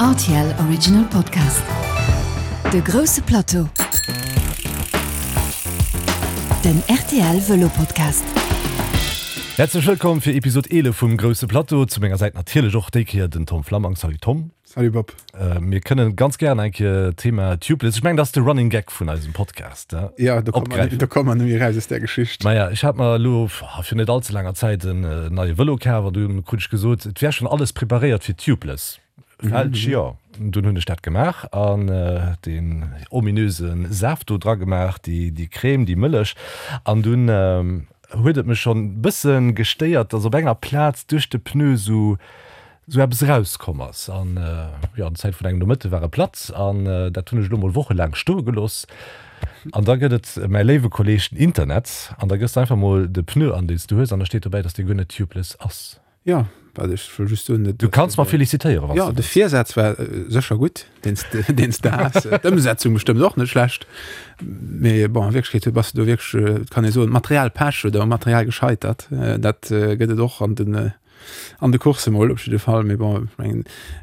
Rtl Original Podcast. De grousse Plateau. Den rtl Vëlo Podcast. Häerzlech wëllkomm fir Episod 11 vum Grousse Plateau. Zu menger Säit natierlech och déi Kéier den Tom Flammang. Salut Tom. Salut Bob. Mir kënnen ganz gären eng Kéier d'Thema Tubeless, ech mengen dat ass de Running Gag vun eisem Podcast, Ja, do komme mer, do komme mer net méi eraus aus där Geschicht. Maja, ech hat mer elo vir net all ze laanger Zäit en neie Vëlo kaf an dunn krut ech gesot, et wär schonn alles preparéiert fir Tubeless. Falsch, jo. Dunn hunn ech dat gemaach an deen ominöse Saaft do dra gemaach, déi, déi Crème, déi Mëllech an dunn huet et mech schonn bësse gestéiert, dass op enger Plaz duerch de Pneu sou sou eppes erauskomm ass. An jo, an Zäit vun engem Nomëtte war e platt an dat hunn ech elo mol wochelaang stoe gelooss. An da gëtt et mäi léiwe Kolleeg den Internet an da gëss de einfach mol de Pneu an, deen s du hues an da steet dobäi, dass dee guer net tubeless ass. Jo, wat ech wëll just soen, Du kanns mer felicitéieren, wann s du wëlls. Jo, de Virsaz war sécher gutt, deen s de has. D'Ëmsetzung bestëmmt och net schlecht. Mee bon, a Wierklechkeet bass de do wierklech, et kann ee soen, Materialpech oder um Material gescheitert. Dat gëtt et och an den An de Coursse mol op jidde Fall, mee bon, ech mengen,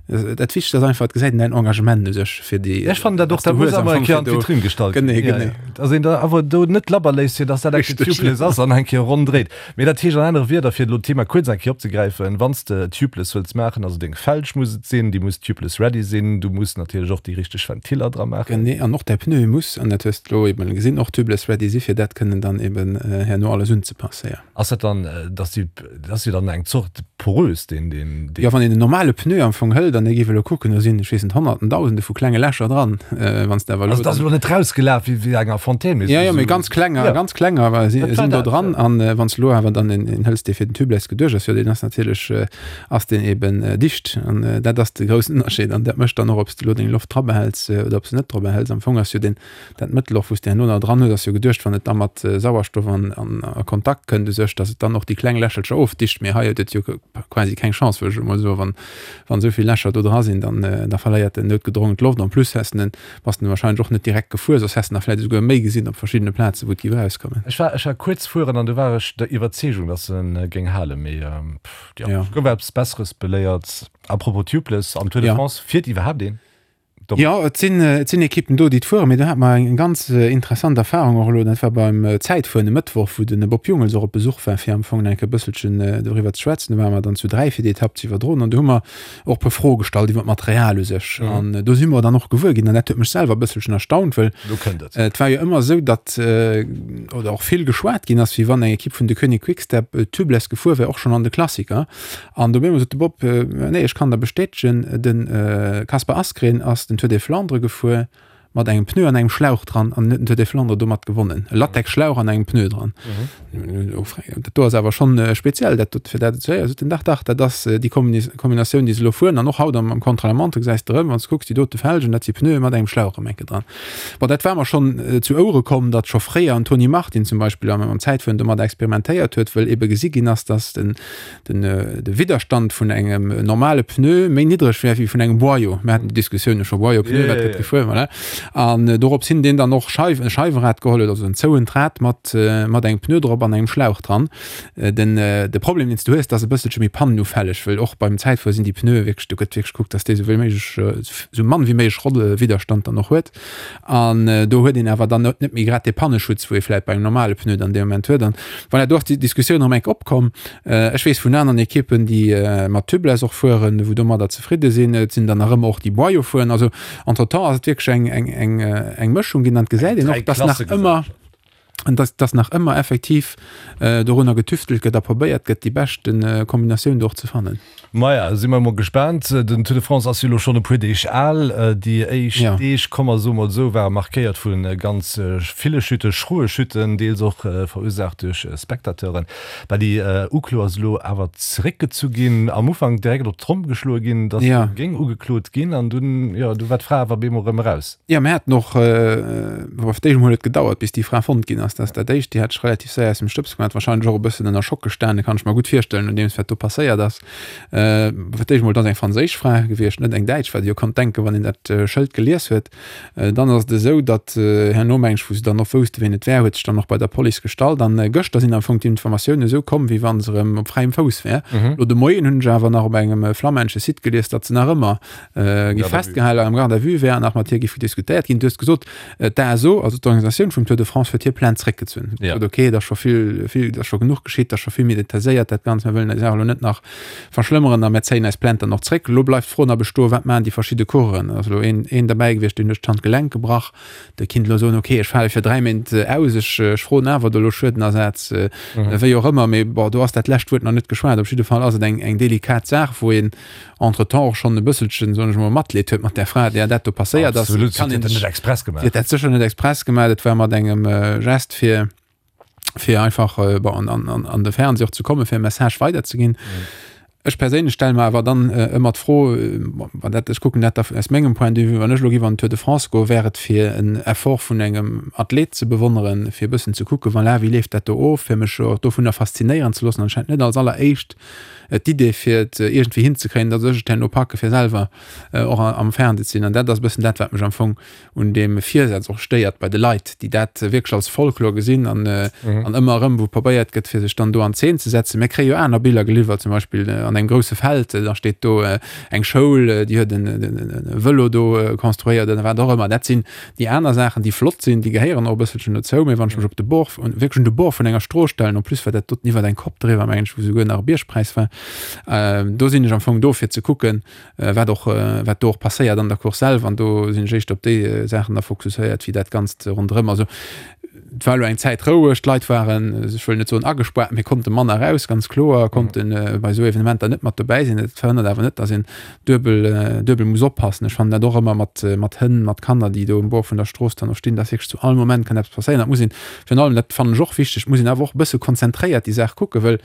dat Wichtegst ass einfach, et gesäit een däin Engagement u sech fir déi. Ech fannen dat och, dat muss awer eng Kéier an d'Vitrinn gestallt ginn. Genee, genee. Dass een da awer do net labber léisst, fir dass dat eng Kéier tubeless ass an eng Kéier ronn dréit. Mee dat heescht an anere Wierder, fir elo d'Thema kuerz eng Kéier opzegräifen, Wann s de tubeless wëlls maachen, also deng Felg muss et sinn, déi muss tubeless ready sinn, du muss natierlech och déi richteg Ventiller dra maachen. Genee, an och däi Pneu muss, an dat hues de elo eben gesinn, och tubeless ready si fir dat kënnen dann eben herno alles unzepassen, jo. Ass dat dann, dass déi, dat ass jo dann eng Zort porös, deen, deen, deen. Jo, wann een en normale Pneu am Fong hëlt an ee géif elo kucken, do sinn, ech weess net, Honnerten, Dausende vu klenge Lächer dran. Wann s de awer elo. Also et ass elo net rausgelaf wéi, wéi enger Fontaine, mee. Jo, jo, mee ganz klenger, ganz klenger wa si, sinn do dran. An wann s de elo awer dann een, een hëls, dee fir den Tubeless geduecht ass, jo, deen ass natierlech, ass deen eben dicht. An dat ass de groussen Ënnerscheed. An dat mécht dann och, ob s de elo deng Loft dra behäls oder ob s de net dra behäls. Am Fong ass jo deen, Dat Mëttel och, wou s de herno nach dran hues, ass jo geduecht, wann et da mat Sauerstoff an a Kontakt kënnt u sech, datt et dann och déi kleng Lächelcher ofdicht. Mee hei huet et jo quasi keng Chance, wëll ech emol soen. Wann, wann esou vill Lächer do dra sinn, dann, da verléiert en noutgedrongen d'Loft. En plus häss de en, bass de wahrscheinlech och net direkt gefuer, soss häss de nach vläicht esouguer méi gesinn op verschiddene Plazen, wou et géif erauskommen. Ech war, ech war kuerz fueren an du war ech der Iwwerzeegung, datt en géing halen, mee pff, jo, ech gouf eppes Besseres beléiert. A propos Tubeless, am Tour de France fiert iwwerhaapt een? Jo, et sinn, et sinn Ekippen do, déi et fueren. Mee do hate mer eng ganz interessant Erfarung och elo, dat war beim Zäitfueren e Mëttwoch, wou de Bob Jungels och op Besuch war, fir am Fong enke bësselchen doriwwer ze schwätzen. Do ware mer dann zu 3 fir déi Etapp ze iwwerdroen an do hu mer och e puer Froe gestallt iwwer d'Material u sech. An do si mer dann och gewuer ginn, an dat huet mech selwer e bësselchen erstaunt, well et war jo ëmmer esou, datt oder och vill geschwat ginn ass, wéi wann eng Ekipp vun Deceuninck Quick-Step tubeless gefuer wär, och schonn an de Klassiker. An do sot de Bob, Nee, ech kann der bestätegen, de Kasper Asgreen ass den Tour des Flandres gefuer mat engem Pneu an engem Schlauch dran an huet den Tour des Flandres domat gewonnen. E Latexschlauch an engem Pneu dran. Dat do ass awer schonn speziell, dat dot, fir dat ze héieren. Sot en, Dach, dach, dat ass déi Kombinatioun, déi se elo fueren. An och haut am Contre-la-montre gesäis de erëm, wann s de kucks, déi dote Felgen, dat si Pneue mat engem Schlauch erëm enke dran. Bon, dat war mer schonn zu Ouere komm, datt scho fréier en Tony Martin zum Beispill am Zäitfueren domat experimentéiert huet, wëll ebe gesi ginn ass, datt den den de Widderstand vun engem normale Pneu méi niddreg wär wéi vun engem Boyau. Mir haten déi Diskussioun jo scho, Boyau, Pneu, wat gëtt gefuer, voilà. An dorops hin deen dann och Scheiw, e Scheiwerad geholl huet, also en zouent Rad mat mat engem Pneu drop an engem Schlauch dran. Den de Problem deen s du hues, dat ass e bësselche méi pannenufälleg, wëll och beim Zäitfuer sinn déi Pneue wierklech, do gëtt wierklech gekuckt, dass dee sou wéi méiglech, sou mann wéi méiglech Rollwiderstand dann och huet. An do huet een awer dann net méi grad dee Panneschutz, wou ee vläit bei engem normale Pneu dann dee Moment huet. An voilà, do ass déi Diskussioun erëm enk opkomm. Ech weess vun aneren Ekippen, déi mat Tubeless och fueren, wou domadder zefridde sinn. Et sinn der nach ëmmer och, déi Boyau fueren. Also entretemps ass et wierklech eng, eng, eng, eng Mëschung ginn an et gesäit een och, dass nach ëmmer, dass, dass nach ëmmer effektiv dorunner getüftelt gëtt a probéiert gëtt, déi beschte Kombinatioun do och ze fannen. Maja, si mer emol gespaant. Den Tour de France ass jo elo schonn e puer Deeg al. Déi éischt Deeg, komm mer soe mol esou, ware markéiert vu ganz ville Chutten, schroe Chutten, deels och verursaacht duerch Spectateuren. Bah, déi Uklo ass elo awer zeréckgezu ginn. Am Ufank direkt op d'Tromm geschloe ginn, datt géing ugeklot ginn an dunn, jo, du war d'Fra awer bemol erëm eraus. Jo, mir haten och, bon, fir d'éischt emol huet et gedauert, bis déi Fra fonnt ginn ass. ginn ass. Dat ass dat Éischt. Déi hat sech relativ séier aus dem Stëbs gemaach, warscheinlech och e bëssen ënner Schock gestanen, kann ech mer gutt virstellen, nodeems wat do passéiert ass. Fir d'éischt emol, et ass eng franséisch Fra gewiescht, net eng däitsch, wat ee jo konnt denken, wann een dat Schëld gelies huet. Dann ass et esou, datt herno, meng ech, wou se dann och wousste wien et wär, huet sech dann och bei der Police gestallt. An gëschter sinn am Fong d'Informatiounen esou komm, wéi wa se erëm op fräiem Fouss wär. Elo de Moien hunn ech awer nach op engem flammännesche Site gelies, datt se nach ëmmer gi festgehale am Garde à vue wär an nach mat hir géif diskutéiert ginn. Du hues gesot, d'ASO, also d'Organisatioun vum Tour de France, huet hir Plainte zréckgezunn. Huet gesot, okay, et ass scho vill, vill, et ass scho genuch geschitt, et ass scho vill méi detailléiert dat Ganzt, mir wëllen déi Saach elo net nach verschlëmmeren a mir zéien eis Plainte dann och zréck. Elo bleift d'Fro nach bestoen, Wat maachen déi verschidde Coureuren? Et ass elo een, een derbäi gewiescht, deen huet d'Handgelenk gebrach. Dee kinnt elo soen, okay, ech fale fir 3 Méint aus, ech, ech froen awer do elo Schuedenersaz, wéi och ëmmer. Mee bon, do ass dat lescht Wuert nach net geschwat. Op jidde Fall ass et eng, eng delikat Saach, wou een entretemps och schonn e bësselchen, soen ech emol, Matleed huet mat där Fra, där dat do passéiert ass. Absolut, si huet dat net express gemaach. Si huet dat sécher net express gemaach. Dat war mat engem Gest fir, fir einfach äh, bon, an, an, an, an de Fernseh och ze kommen, fir e Message weiderzeginn. Mhm. Ech perséinlech stelle mer awer dann äh, ëmmer d'Fro, äh, wann dat, ech kucken dat da aus mengem Point de vue, wann ech elo géif an den Tour de France goen, wär et fir en Effort vun engem Athlet ze bewonneren, fir e bëssen ze kucken, voilà, wéi leeft dat do of, fir mech och dovunner faszinéieren ze loossen, anscheinend net als alleréischt äh, d'Idee fir et äh, iergendwéi hinzekréien, datt ech et herno packe fir selwer äh, och am Fernseh ze sinn. An dat ass e bëssen dat, wat mech am Fong un deem Virsaz och stéiert bei de Leit, déi dat wierklech als Folklor gesinn an, mhm. an ëmmer erëm, wou probéiert gëtt, fir sech dann do an Zeen ze setzen. Mir kréie jo aner Biller geliwwert, zum Beispill äh, an engem grousse Feld, äh, da steet do äh, eng Schoul, äh, déi huet en, en, en Vëlo do äh, konstruéiert oder wat och ëmmer. Dat sinn déi aner Saachen, déi flott sinn, déi gehéieren och e bësselchen dozou, mee wann ech mech op de Bord, wierklech un de Bord vun enger Strooss stellen, en plus war dat doten iwwer eng Kopp driwwer, mengen ech, wou souguer nach e Biergpräis war, äh, do sinn ech am Fong do fir ze kucken, wat och wat do och passéiert an der Course selwer an do sinn ech éischter op déi Saachen da fokusséiert wéi dat Ganzt ronderëm. Also et war elo eng Zäit roueg, d'Leit waren, ech wëll net soen agespaart, mee konnte manner raus, ganz kloer, konnte bei esou Evenementer net mat dobäi sinn. Dat verhënnert awer net, datt een duebel duebel muss oppassen. Ech fannen dat och ëmmer mat mat Hënn, mat Kanner, déi do um Bord vun der Strooss dann och stinn, datt wierklech zu all Moment kann eppes passéieren. Dat muss een virun allem, dat fannen ech och wichteg, muss een awer och e bësse konzentréiert déi Saach kucken, wëll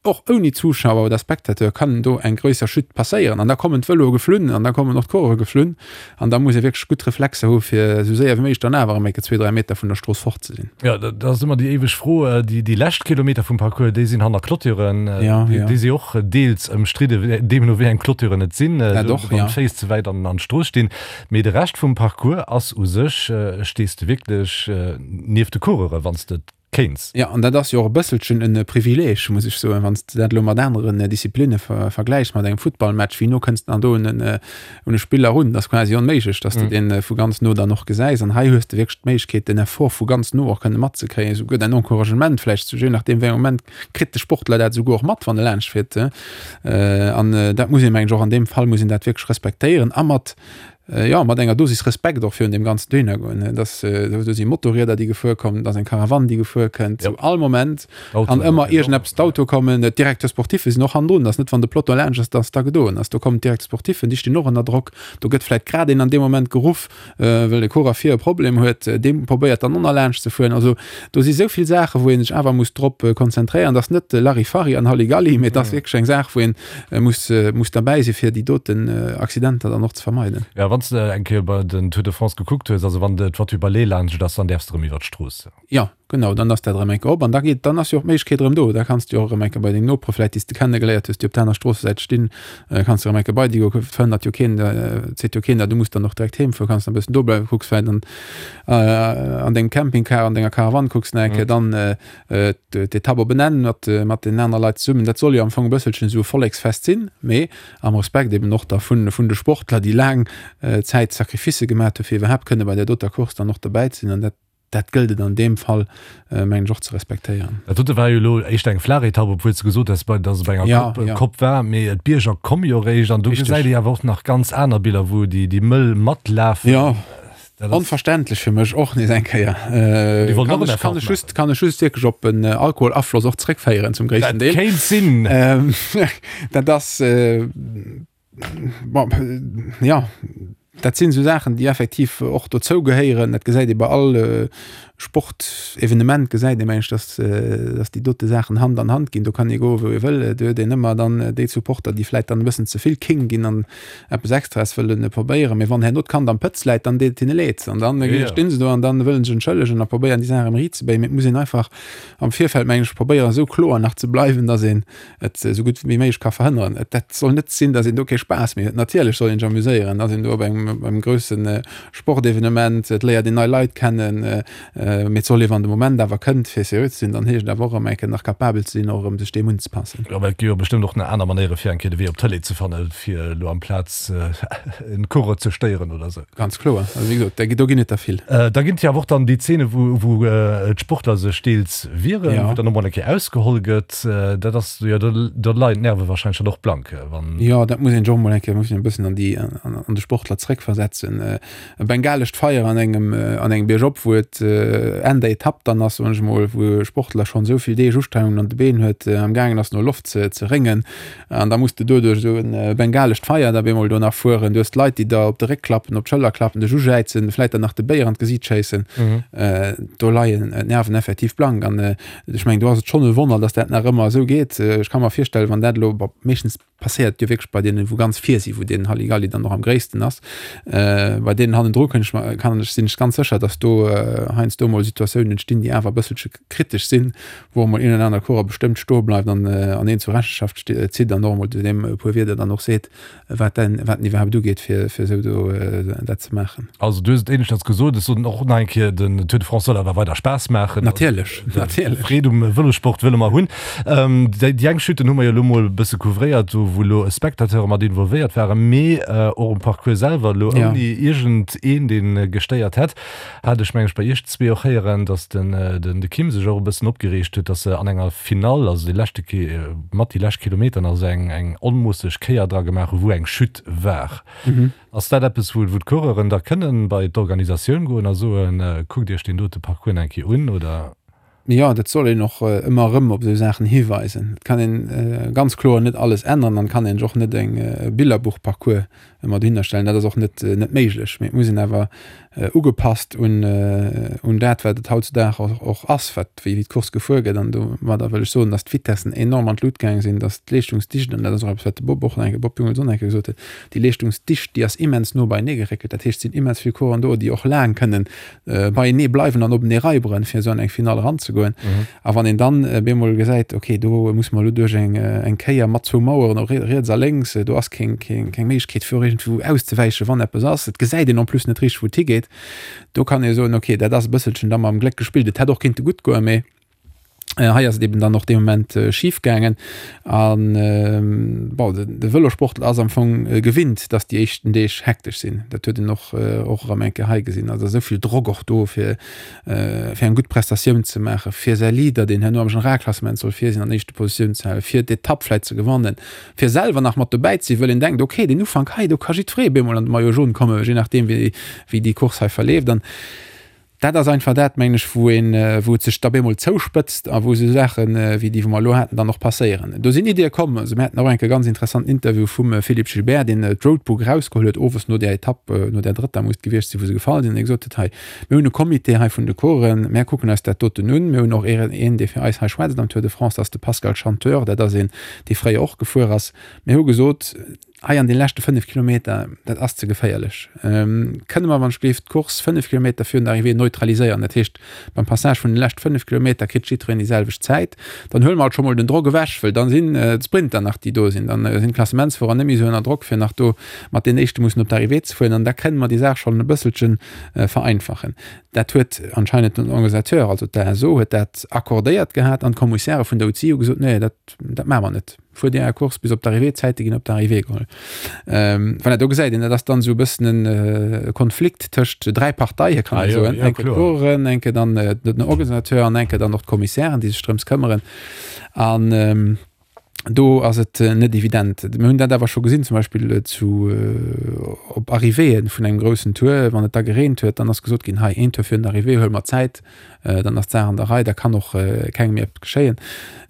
Och ouni Zuschauer oder Spectateur kann do eng gréisser Chute passéieren an da kommen d'Vëloe geflunn an da kommen och d'Coureuren geflunn an da muss ee wierklech gutt Reflexer hu fir esou séier wéi méiglech dann awer erëm eng Kéier zwee, dräi Meter vun der Strooss fort ze sinn. Jo, dat ass ëmmer déi éiweg Fro. Déi, déi lescht Kilometer vum Parcours, déi sinn hanner Clôturen. Ja, ja. Déi si och deels ëmstridde, deemno wéi eng Clôturen et sinn, Dat och, wann ja. d'Féiss ze wäit an an d'Strooss stinn. Mee de Rescht vum Parcours ass u sech, stees de wierklech nieft de Coureure wann s de kéints. Jo, an dat ass jo och e bësselchen e Privileeg, muss ech soen, wann s de dat elo mat aneren Disziplinne vergläichs, mat engem Futtballmatch, wéi no kënns de dann do un en un e Spiller erun? Dat ass quasi onméiglech, dass de dee vu ganz no dann och gesäis. An hei hues de wierklech d'Méiglechkeet, den Effort vu ganz no och kënne matzekréien, esouguer däin Encouragement vläicht, je nachdeem wéi engem Moment kritt de Sportler dat esouguer och mat, wann e laanscht fiert. An dat muss een, mengen ech, och an deem Fall muss een dat wierklech respektéieren a mat Jo, mat enger Dosis Respekt och virun deem ganzen dohinner goen. Dass do si Motorrieder, déi gefuer kommen, et ass eng Karawann, déi gefuer kënnt. Zu all Moment kann ëmmer iergendeppes, d'Auto kommen, d'Directeurs sportiffe sinn och hannendrun. Et ass net, wann de Peloton laanscht ass, dass da gedoen ass. Do kommen d'Directeurs sportiffen, déi stinn och ënner Drock. Do gëtt vläicht grad een an deem Moment geruff, well de Coureur vir e Problem huet. Dee probéiert dann och nach laanscht ze fueren. Also do si sou vill Saachen, wou ee sech awer muss drop konzentréieren. Et ass net Larifari an Halligalli, mee et ass wierklech eng Saach, wou een muss, muss derbäi si fir déi doten Accidenter dann och ze vermeiden. Jo, wann s de eng Kéier bei den Tour de France gekuckt hues, also wann de d'Voiture balai laanscht ass, dann däerfs de erëm iwwer d'Strooss. Jo, genau, dann ass dat erëm eng Kéier op an da geet, dann ass jo och d'Méiglechkeet erëm do, da kanns de jo och erëm eng Kéier bei deng Nopere vläicht, déi s de kennegeléiert hues, déi op der aner Stroossesäit stinn, kanns de erëm eng Kéier bei déi goen, verhënnert jo keen, seet jo keen der, du muss dann och direkt heem fueren, kanns nach e bëssen do bleiwen, kucks vläicht an an dengem Campingcar, an denger Karawann kucks nach eng Kéier dann d'Etapp op en Enn mat mat den aner Leit zesummen. Dat soll jo am Fong e bësselchen esou e Volleksfest sinn, mee am Respekt eben och da vun vun de Sportler, déi laang Zäit Sacrificë gemat hu fir iwwerhaapt kënne bei där doter Course dann och dobäi ze sinn. An dat dat gëllt et an deem Fall mengen ech och ze respektéieren. Dat dote war jo elo éischter eng flaach Etapp, obwuel s de gesot hues, datt et bei enger Kopp, ja, ja. Kopp war, mee d'Bierger komme jo eréischt an do gesäit ee awer och nach ganz aner Biller, wou déi déi mëll matlafen. Jo. Onverständlech fir mech och nees eng Kéier. Déi wollten och en Effort maachen. Just, kann ech just wierklech op en Alkoholafloss och zréckféieren zum gréissten Deel. Dat kéint sinn. Dat ass, bon, jo, dat sinn esou Saachen, déi effektiv och dozou gehéieren. Dat gesäit ee bei all. Sportevenement gesäit ee mengen ech, dass dass déi dote Saachen Hand an Hand ginn. Do kann ee goe wou ee wëll, do huet een ëmmer dann déi Supporter, déi vläit dann e bëssen ze vill kéng ginn an eppes Extraes wëllen probéieren. Mee wann herno d'Kand am Pëtz läit, dann deet et hinne leed an dann stinn se do an dann wëllen sech entschëllegen a probéieren déi Saach erëm riitzebéien. Mee et muss een einfach am Virfeld mengen ech probéieren esou kloer nach ze bleiwen, dass een et esou gutt wéi méiglech ka verhënneren. Et dat soll net sinn, datt een do kee Spaass méi huet. Natierlech soll een sech amuséieren, ass een do op engem, op engem grousse Sportevenement, et léiert een nei Leit kennen, mee et soll ee wann de Moment awer kënnt fir seriö ze sinn, dann heescht et awer och erëm eng Kéier nach capabel ze sinn, och erëm sech deem unzepassen. Jo, mä et gi jo bestëmmt och nach aner Manéiere fir eng Kéier de Wee op d'Tëlee ze fannen, fir elo amplaz en Coureur ze stéieren oder esou. Ganz kloer. Also wéi gesot, do ginn et der vill. Da ginn et jo awer och dann déi Zeene wou, wou d'Sportler sech deels wieren, wou dann och mol eng Kéier ausgeholl gëtt. Dat ass jo, do leien d'Nerve wahrscheinlech dann och blank, wann. Jo, dat muss een sech och mol eng Kéier, muss een e bëssen an déi, an de Sportler zréckversetzen. E bengalescht Feier an engem, an engem Biergop, wou et Enn der Etapp dann ass, soen ech mol, wou e Sportler schonn esou vill Deeg Ustrengungen an de Been huet, am gaangen ass no Loft ze, ze réngen, an da muss de doduerch esou e bengalescht Feier da bemol do nach fueren. Du hues d'Leit, déi der op de Réck klappen, op d'Schëller klappen, dech ujäizen, vläit der nach de Béier an d'Gesiit schéissen. Do leien d'Nerven effektiv blank an Ech mengen, do ass et schonn e Wonner, dass dat nach ëmmer esou geet. Ech ka mer virstellen, wann dat elo, bon, meeschtens passéiert et jo wierklech bei deenen, wou ganz vir sinn, wou deen Halligalli dann och am gréissten ass. Bei deenen hannendru kënnt ech mer, kann ech, sinn ech ganz sécher, dass do heiansdo emol Situatiounen entstinn, déi awer e bësselche kritesch sinn, wou emol een oder aner Coureur bestëmmt stoe bleift an an een zur Rechenschaft zitt an och emol zu deem e puer Wierder dann och seet. wat den wat den iwwerhaapt ugeet fir fir esou do dat ze maachen. Also du hues et éineschters gesot, ech soen och nach eng Kéier, den Tour de France soll awer weider Spaass maachen. Natierlech, natierlech. Freed um Vëlossport wëlle mer hunn. Déi déi eng Chuten hu mer jo elo mol e bësse couvréiert, do wou elo Spectateure mat involvéiert waren, mee och um Parcours selwer elo ouni iergend een dee gestéiert hätt. Hat ech meng ech bei iech zwee och héieren, datt den den de Kim sech och e bëssen opgereegt huet, datt se an enger Finall, also dee leschte Ki mat déi lescht Kilometeren, also eng eng onmoosseg Kéier dra gemaach hu wou eng Chute war. Ass dat eppes wou wou d'Coureuren da kënnen bei d'Organisatioun goen a soen, kuckt iech deen dote Parcours nach eng Kéier un, oder? Jo, dat soll een och ëmmer erëm op esou Saachen hiweisen. Et kann een ganz kloer net alles änneren an et kann een sech och net eng Billerbuchparcours ëmmer dohinner stellen. Dat ass och net net méiglech. Mee et muss een awer ugepasst un un dat, wat et hautzudag och och ass, wat wéi d'Course gefuer gëtt. An domadder wëll ech soen, datt d'Vitessen enorm an d'Lut gaange sinn, datt d'Leeschtungsdicht, an dat ass och eppes, wat de Bob och nach eng Kéier, Bob Jungels och nach eng Kéier gesot huet, déi Leeschtungsdicht, déi ass immens no beienee geréckelt. Dat heescht, et sinn immens vill Coureuren do, déi och laang kënnen beienee bleiwen an openee raiberen, fir esou an eng Finall eranzegoen. A wann een dann bemol gesäit, okay, do muss mer elo duerch eng, eng Kéier mat zwou Maueren, och riets a lénks, do ass keng, keng, keng Méiglechkeet fir och iergendwou auszewäichen, wann eppes ass, et gesäit een en plus net richteg, wou et higeet, do kann ee soen, okay, dat ass e bësselchen da mam Gléck gespillt. Et hätt och kinnte gutt goen, mee Hei ass et eben dann och dee Moment schif gaangen. An bon, de Vëlosportler ass am Fong gewinnt, datt déi éischten Deeg hektesch sinn. Dat huet een och och erëm eng Kéier hei gesinn. Also esou vill Drock och do, fir fir eng gutt Prestatioun ze maachen, fir säi Leader, deen herno am Generalklassement soll vir sinn, an éischte Positioun ze halen, fir d'Etapp vläicht ze gewannen, fir selwer nach mat dobäi ze sinn, wëll een denkt, okay, den Ufank hei, do ka jiddweree bemol an de Maillot jaune kommen, je nachdeem wéi wéi déi Course hei verleeft. An Dat ass einfach dat, mengen ech, wou een, wou et sech da bemol zouspëtzt a wou esou Saachen, wéi déi, wou mer elo haten, dann och passéieren. Do sinn Iddie komm. Also mir haten och eng Kéier e ganz interessanten Interview vum Philippe Gilbert, deen d'Roadbook erausgeholl huet, owes no där Etapp, no där drëtter muss et gewiescht sinn, wou se gefall sinn, dee gesot huet, Hei, mir hunn e Comité hei vun de Coureuren, mär kucken eis dat doten un. Mir hunn och een, dee fir eis hei schwätzt am Tour de France, dat ass de Pascal Chanteur, dat ass een, dee fréier och gefuer ass. Mir hu gesot, Hei an de leschte 5 Kilometer, dat ass ze geféierlech. Kënne mer wann ech gleef d'Course 5 Kilometer virun der Arrivée neutraliséieren, dat heescht beim Passage vun de lescht 5 Kilometer kritt jiddwereen déi selwecht Zäit, dann huele mer alt scho mol den Drock ewech, wëll dann sinn d'Sprinter nach déi do sinn, dann sinn d'Klassementsfuerer net méi esou ënner Drock fir nach do mat den éischte mussen op d'Arrivée ze fueren an da kënne mer déi Saach schonn e bësselche vereinfachen. Dat huet anscheinend den Organisateur, also d'ASO huet dat accordéiert gehat an d'Kommissäre vun der UCI hu gesot, nee dat dat maache mer net. Fuer dir är Course bis op d'Arrivée, d'Zäite ginn op d'Arrivée geholl. Ähm, voilà, do gesäit een, dat ass dann esou e bëssen en äh, Konflikt tëscht dräi Parteie, kann ah, soen. Ja, enke d'Coureuren, enke dann äh, den Organisateur an enke dann och d'Kommissären, déi sech drëms këmmeren. An ähm,. Do ass et net evident. Mir hunn dat awer scho gesinn, zum Beispill zu op Arrivéeë vun engem groussen Tour, wann et da gereent huet, dann ass gesot ginn, hei een Tour virun der Arrivée huele mer Zäit, dann ass d'Saach an der Rei, da kann och kengem méi eppes geschéien.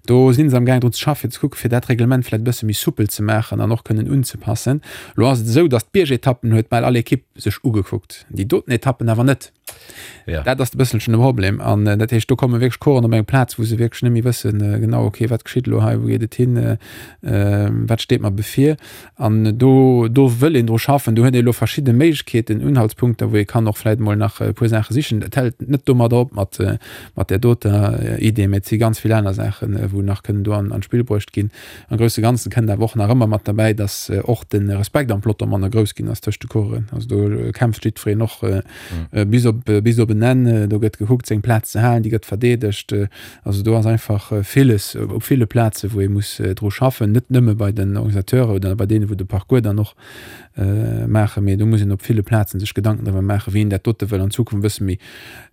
Do si se am gaang drun ze schaffen, fir ze kucken, fir dat Reglement vläicht e bësse méi soupel ze maachen an och kënnen unzepassen. Elo ass et esou, datt d'Biergetappen huet bal all Ekipp sech ugekuckt, déi doten Etappen awer net. Ja. Dat ass e bësselchen de Problem. An äh, dat heescht, do komme wierklech Coursen op eng Plaz, wou se wierklech net méi wëssen, äh, genau, okay, wat geschitt elo hei, wou geet et hin, äh, äh, wat steet mer bevir. An do, do wëll een dru schaffen. Do huet ee elo verschidde Méiglechkeeten, Unhaltspunkter, wou ee kann och vläicht emol nach e puer Saache sichen. Et hält net domadder op mat, äh, mat där doter Idee, mä et si ganz vill aner Saachen, äh, wou nach kënnen do an, an d'Spill bruecht ginn. Am grousse Ganzen kënnt awer och nach ëmmer mat derbäi, dass och de Respekt am Peloton manner grouss ginn ass tëscht de Coureuren. Also do kämpft jiddwereen och bis op bis op en Enn. Do gëtt gekuckt seng Plaz ze halen, déi gëtt verdeedegt. Also do ass einfach villes op ville Plaze wou ee muss dru schaffen, net nëmme bei den Organisateuren oder bei deene wou de Parcours dann och maachen, mee do muss een op ville Plazen sech Gedanken driwwer maachen, wéi een dat dote wëll an Zukunft e bësse méi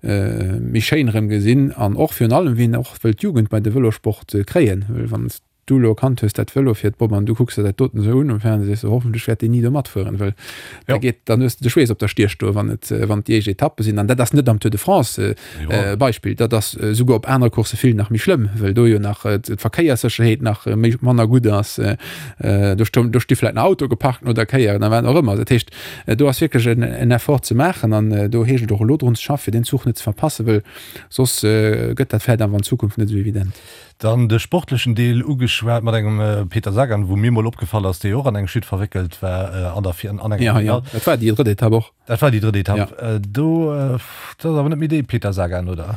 méi schéin erëm gesinn an och virun allem, wéi een och wëll d'Jugend bei de Vëlosport kréien. Well wann s du elo erkannt hues, dat Vëlo fiert, Bob, an du kucks der dat doten esou un um Fernseh, sees du, hoffentlech wäert deen ni do matfueren, well da geet, dann hues de de Schweess op der Stier stoen, wann et, wann et déi éischt Etappe sinn. An dat ass net am Tour de France, Beispill, dat ass esouguer op anere Coursse vill nach méi schlëmm, well do jo nach d'Verkéierssécherheet nach méi manner gutt ass. Do stoung, do sti vläicht nach Autoe geparkt no der Kéier oder wat och ëmmer. Dat heescht, do ass wierklech en en Effort ze maachen an do heescht et och elo drun ze schaffen, fir deen Zuch net ze verpassen, well soss gëtt dat vläicht awer an Zukunft net esou evident. Dann de sportlechen Deel ugeschwat mat engem Peter Sagan, wou mir mol opgefall ass, dee jo och an eng Chute verwéckelt war an der an enger Finall. Ja, ja, dat war déi drëtt Etapp och. Dat war déi drëtt Etapp. Ja. Do, dat ass awer net méi dee Peter Sagan, oder?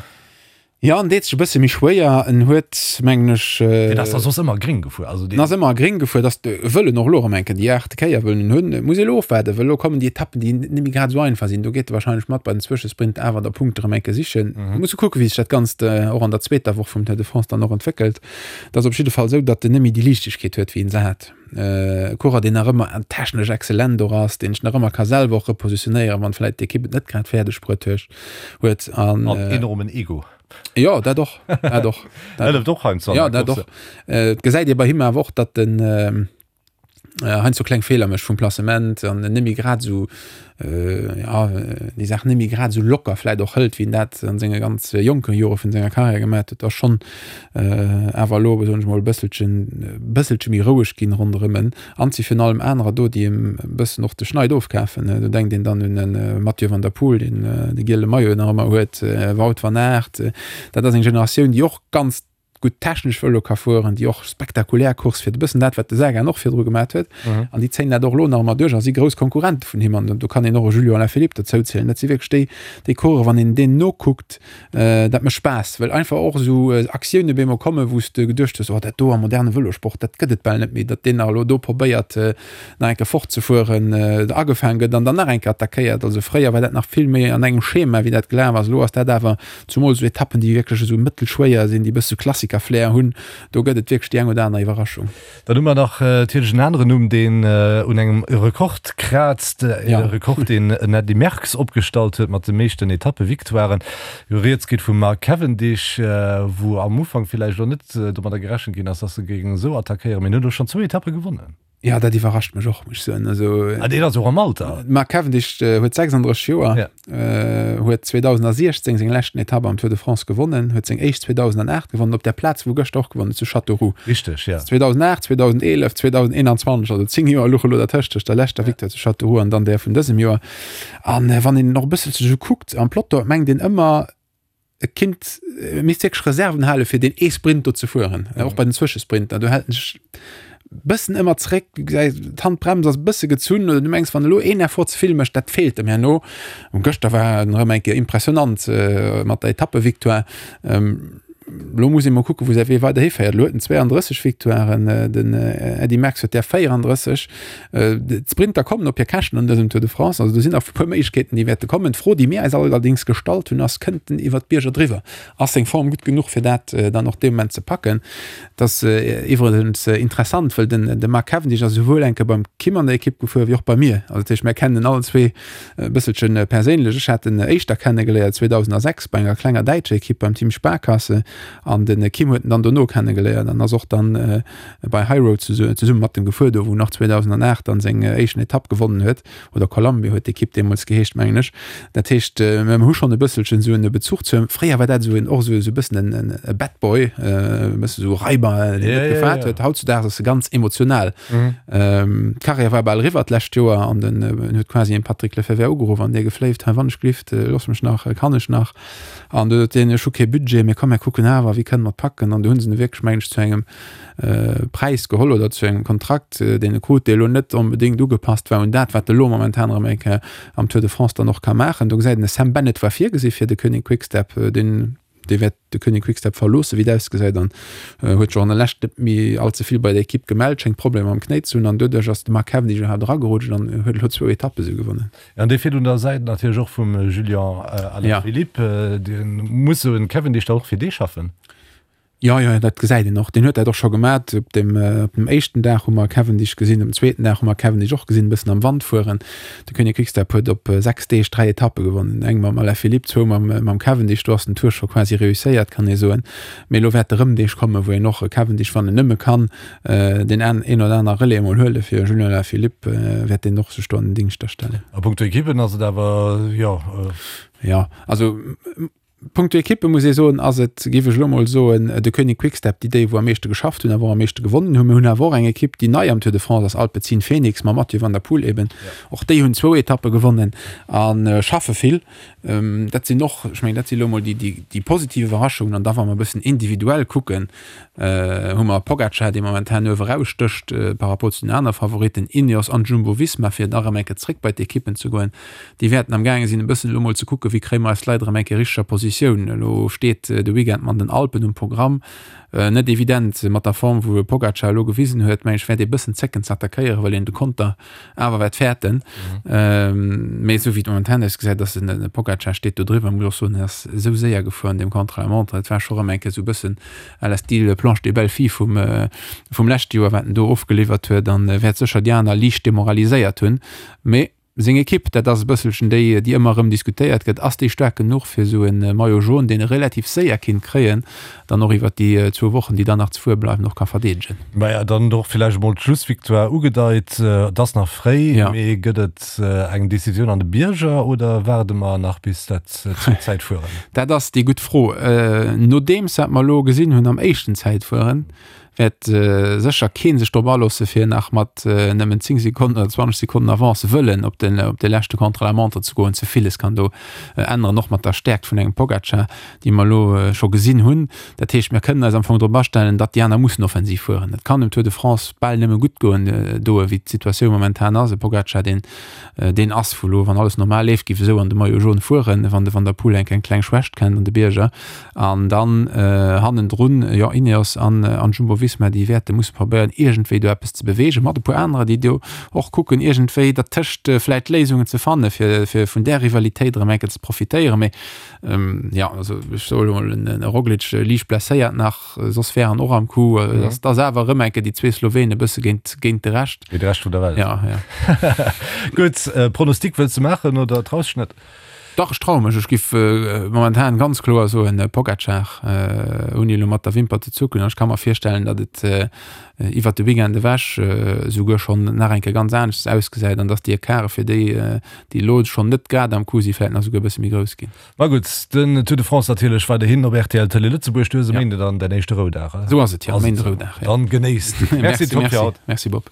Ja, en deet sech e bësse méi schwéier. En huet, mengen ech. Deen ass da soss ëmmer gréng gefuer. Also deen. En ass ëmmer gréng gefuer. Dass de wëll en och elo erëm eng Kéier déi aachte Kéier wëll en hunn. Et muss ee elo ofwaarden, well elo kommen déi Etappen, déi net méi grad esou einfach sinn. Do geet e wahrscheinlech mat bei den Zwëschesprint awer da Punkte erëm eng Kéier sichen. Mm. Muss e kucken, wéi sech dat Ganzt och an der zweeter Woch vum Tour de France dann och entwéckelt. Et ass op jidde Fall esou, datt en net méi déi Liichtegkeet huet, wéi en se hat. E Coureur, deen nach ëmmer technesch exzellent och ass, deen sech nach ëmmer ka selwer och repositionéieren, wann vläit d'Ekipp et net grad fäerdeg bruet huet. An enormen Ego. Jo, dat och, dat och. Dat hëlleft och heiansdo an der Course. Jo, dat och. Et gesäit ee bei him awer och, datt en heiansdo kleng Feeler mécht vum Placement an en net méi grad esou ja, déi Saach net méi grad esou locker vläit och hëlt, wéi en dat an senge ganz jonke Jore vun senger Karriär gemat huet, ass schonn awer elo, soen ech mol, e bësselchen, bësselche méi roueg ginn ronderëm en. An et si virun allem anerer do, déi em e bëssen och de Schneid ofkafen. Do denkt een dann un e Mathieu van der Poel, deen de giele Maillot nach ëmmer huet, Wout van Aert. Dat ass eng Generatioun, déi och ganz gutt technesch Vëlo ka fueren, déi och spektakulär Course fiert, e bëssen dat, wat de Sagan och virdru gemat huet. An déi zéien dat och elo nach ëmmer duerch a si grouss Konkurrente vun him. An do kann een och e Julian Alaphilippe dozou zielen. Dat si wierklech déi, déi Coureuren, wann een deenen nokuckt, dat mécht Spaass, well einfach och esou Aktioune bemol kommen, wou s de geduecht hues, oh dat do am moderne Vëlosport, dat gëtt et bal net méi, datt deen nach elo do probéiert, nach eng Kéier fortzefueren, agefaang gëtt an dann nach eng Kéier attackéiert. Also fréier war dat nach vill méi an engem Schema, wéi dat gelaf ass. Elo ass dat awer Zumol esou Etappen, déi wierklech esou mëttelschwéier sinn, déi e bësse Klassiker-Flair hunn, do gëtt et wierklech déi eng oder aner Iwwerraschung. Dann hu mer nach natierlech en aneren Numm, deen un engem Rekord kraazt, e Rekord, deen en Eddy Merckx opgestallt huet mat de meeschten Etappe-Victoiren. Rieds geet vum Mark Cavendish, wou am Ufank villäicht elo net domadder gerechent ginn ass, dass e géing esou attackéieren, mee en huet elo schonn zwou Etappe gewonnen. Ja, dat iwwerrascht mech och, muss ech soen. Also, ah, deen ass och am Alter. Mark Cavendish äh, huet 36 Joer, ja. äh, huet 2016 seng leschten Etappe am Tour de France gewonnen, huet seng éischt 2008 gewonnen, op der Plaz, wou gëschter och gewonnen, zu Châteauroux. Richtig, ja. 2008, 2011, 2021, also 10 Joer luche lo dertëscht, tëscht der leschter ja. Victoire zu Châteauroux an dann där vun dësem Joer. An äh, wann een och e bësselche sou kuckt am Peloton, mengt een ëmmer, e kinnt, e misst wierklech Reserven hale fir deen ee Sprint do ze fueren, mhm. och bei den Zwëschesprinter. Do hält en sech bëssen ëmmer zréck, du gesäis d'Handbrems ass bësse gezunn oder du mengs wann elo een Effort ze vill mécht, dat feelt em herno. Und gëschter war en erëm eng Kéier impressionant äh, mat der Etappevictoire. Ähm, lo muss ee mol kucken, wou säi Wee weider hiféiert. Lo huet en 32 Victoiren, äh, den äh, Eddy Merckx huet der 34. D'Sprinter kommen op hir Käschten an dësem Tour de France. Also do sinn nach e puer Méiglechkeeten, déi wäerte kommen. D'Fro, déi mir eis allerdéngs gestallt hunn, ass, Kënnt en iwwer d'Bierger driwwer? Ass seng Form gutt genuch, fir dat dann och dee Moment ze packen? Dat ass iwwregens interessant, well den de Mark Cavendish ass esouwuel eng Kéier beim Kim an der Ekipp gefuer wéi och bei mir. Also dat heescht, mir kennen en allen zwee e bësselche perséinlech. Ech hat en éischter kennegeléiert 2006 bei enger klenger däitscher Ekipp, beim Team Sparkasse. An de Kim huet en dann dono kennegeléiert an ass och dann bei High Road zesumme mat em gefuer, do wou en och 2008 dann seng éischten Etapp gewonnen huet, oder Columbia huet d'Ekipp deemools geheescht, mengen ech. Dat heescht, mir hu schonn e bësselchen esou en Bezuch zu him. Fréier war dat esou en, och esou e bëssen en e Bad Boy, e bësse esou Raiber, deen net gefaart huet. Hautzudaags ass e ganz emotional. D'Karriär war bal eriwwer d'lescht Joer an den huet quasi en Patrick Lefevere ugeruff an dee gefléift, hei wann ech glift, looss mech nach, kann ech nach? An du huet deen, ech hu kee Budget, mee komm mir kucken awer, wéi kënne mer et packen? An du hunn se e wierklech, mengen ech, zu engem Präis geholl oder zu engem Kontrakt, deen e krut, dee elo net onbedéngt ugepasst war un dat, wat e lo momentan erëm eng Kéier am Tour de France dann och ka maachen. Do gesäit een, de Sam Bennett war virgesi fir de Koenig Quick-Step, deen dee wäert de Koenig Quick-Step verloossen, wéi et ausgesäit, an huet sech och an der Lescht net méi all ze vill bei der Ekipp gemellt, schéngt Problemer mam Knéi ze hunn an doduerch ass de Mark Cavendish iwwerhaapt eragerutscht an huet elo zwou Etappe sou gewonnen. An dee fiert un der Säit natierlech och vum Julian Alaphilippe. Dee muss esou en Cavendish da och fir dee schaffen? Jo, jo, dat gesäit een och. Deen huet dat och scho gemat. Op dem, op dem éischten Dag hu mer Cavendish gesinn, um zweeten Dag hu mer Cavendish och gesinn, e bëssen am Wand fueren. De Koenig Quickstep huet op 6 Deeg 3 Etappe gewonnen, eng mam Alaphilippe, zwou mam, mam Cavendish. Do ass den Tour scho quasi reusséiert, kann ee soen. Mee elo wäerte rëm Deeg kommen, wou een och e Cavendish, wann en nëmme kann, deen an, een oder aner Relais emol huele fir Julian Alaphilippe, wäert deen och sech do an den Dingscht da stellen. A punkto Ekippen ass et awer, jo. Jo, also Punkto Ekippe muss ee soen, ass et, géif ech elo mol soen, de Koenig Quick-Step, déi déi wou am meeschte geschafft hunn, awer och am meeschte gewonnen hunn. Mir hunn awer och eng Ekipp, déi nei am Tour de France ass, Alpecin Fenix mam Mathieu van der Poel eben. Och déi hunn zwou Etappe gewonnen a schaffe vill. Dat sinn och, ech mengen, dat si elo mol déi, déi, déi positiv Iwwerraschungen. An da wa mer e bëssen individuell kucken, hu mer Pogacar, dee momentan uewe rausstécht par rapport zu den aner Favoritten, Ineos an Jumbo-Visma, fir nach erëm eng Kéier zréck bei d'Ekippen ze goen. Déi wäerten am gaange sinn e bëssen elo mol ze kucken, wéi kréie mer eis Leit erëm eng Kéier richteger Positioun. Elo steet de Weekend mat den Alpen um Programm. Net evident mat der Form wou e Pogacar elo gewisen huet, mengen ech wäert ee bëssen zécken ze attackéieren, well een de Konter awer wäert fäerten. Mee esou wéi et momentan ausgesäit, ass den de Pogacar steet do driwwer. Muss och soen, en ass esou séier gefuer an deem Contre-la-montre, et war scho rëm eng Kéier esou e bëssen à la style Planche des belles filles vum vum leschte Joer, wat en do ofgeliwwert huet an wäert sécher déi aner liicht demoraliséiert hunn. Mee Seng Ekipp, dat ass e bësselchen déi, déi ëmmer erëm diskutéiert gëtt, ass déi staark genuch fir esou e Maillot jaune, deen e relativ séier kinnt kréien, dann och iwwert déi zwou Wochen, déi dann nach ze fuere bleiwen, och ka verdeedegen? Maja, dann och villäicht emol d'Schlussvictoire ugedeit. Et ass nach fréi, mee gëtt et eng Decisioun an de Bierger oder waarde mer nach bis dat zweet Zäitfueren? Dat ass déi gutt Fro. Nodeems wat mer elo gesinn hunn am éischten Zäitfueren, wäert sécher kee sech drop aloosse fir nach mat nëmmen 10 Sekonnen oder 20 Sekonnen Avance wëllen op den op de leschte Contre-la-montre ze goen. Ze villes kann do änneren, och mat der Stäerkt vun engem Pogacar, déi mer elo scho gesinn hunn. Dat heescht, mir kënnen eis am Fong drop astellen, datt déi aner mussen offensiv fueren. Et kann dem Tour de France bal nëmme gutt goen doe wéi d'Situatioun momentan ass. E Pogacar, deen deen ass vu lo, wann alles normal leeft, géif esou an de Maillot jaune fueren, wann de Van der Poel eng eng kleng Schwächt kennt an de Bierger. An dann hannendrun, jo, Ineos an Jumbo-Visma, déi wäerte musse probéieren, iergendwéi do eppes ze beweegen, mat e puer anerer, déi do och kucken, iergendwéi dertëscht vläicht Léisungen ze fannen, fir, fir vun där Rivalitéit erëm eng Kéier ze profitéieren. Mee jo, also ech soe lo mol, en Roglic liicht blesséiert nach, soss wär en och am Coup. Et ass awer erëm eng Kéier déi zwee Slowenen e bësse géint, géint de Rescht. Géint de Rescht vun der Welt. Ja, ja. Gutt, Pronostic wëlls de maachen oder traus dech net? Dach, ech traue mech. Ech giff momentan ganz kloer soen Pogacar, ouni elo mat der Wimper ze zucken. An ech ka mer virstellen, datt et iwwert de Weekend ewech esouguer schonn nach eng Kéier ganz aneschters ausgesäit an datt déi Ecarte fir déi, déi elo schonn net grad am Coup sinn, vläicht nach esouguer e bësse méi grouss ginn. Ma gutt, den Tour de France natierlech weiderhin op rtl Tëlee Lëtzebuerg. Du hues e Méinde dann däin éischte Roudag, Esou ass et, jo, e Méinde Roudag, jo. Dann genéisst. Merci, Tom, fir haut. Merci, Bob.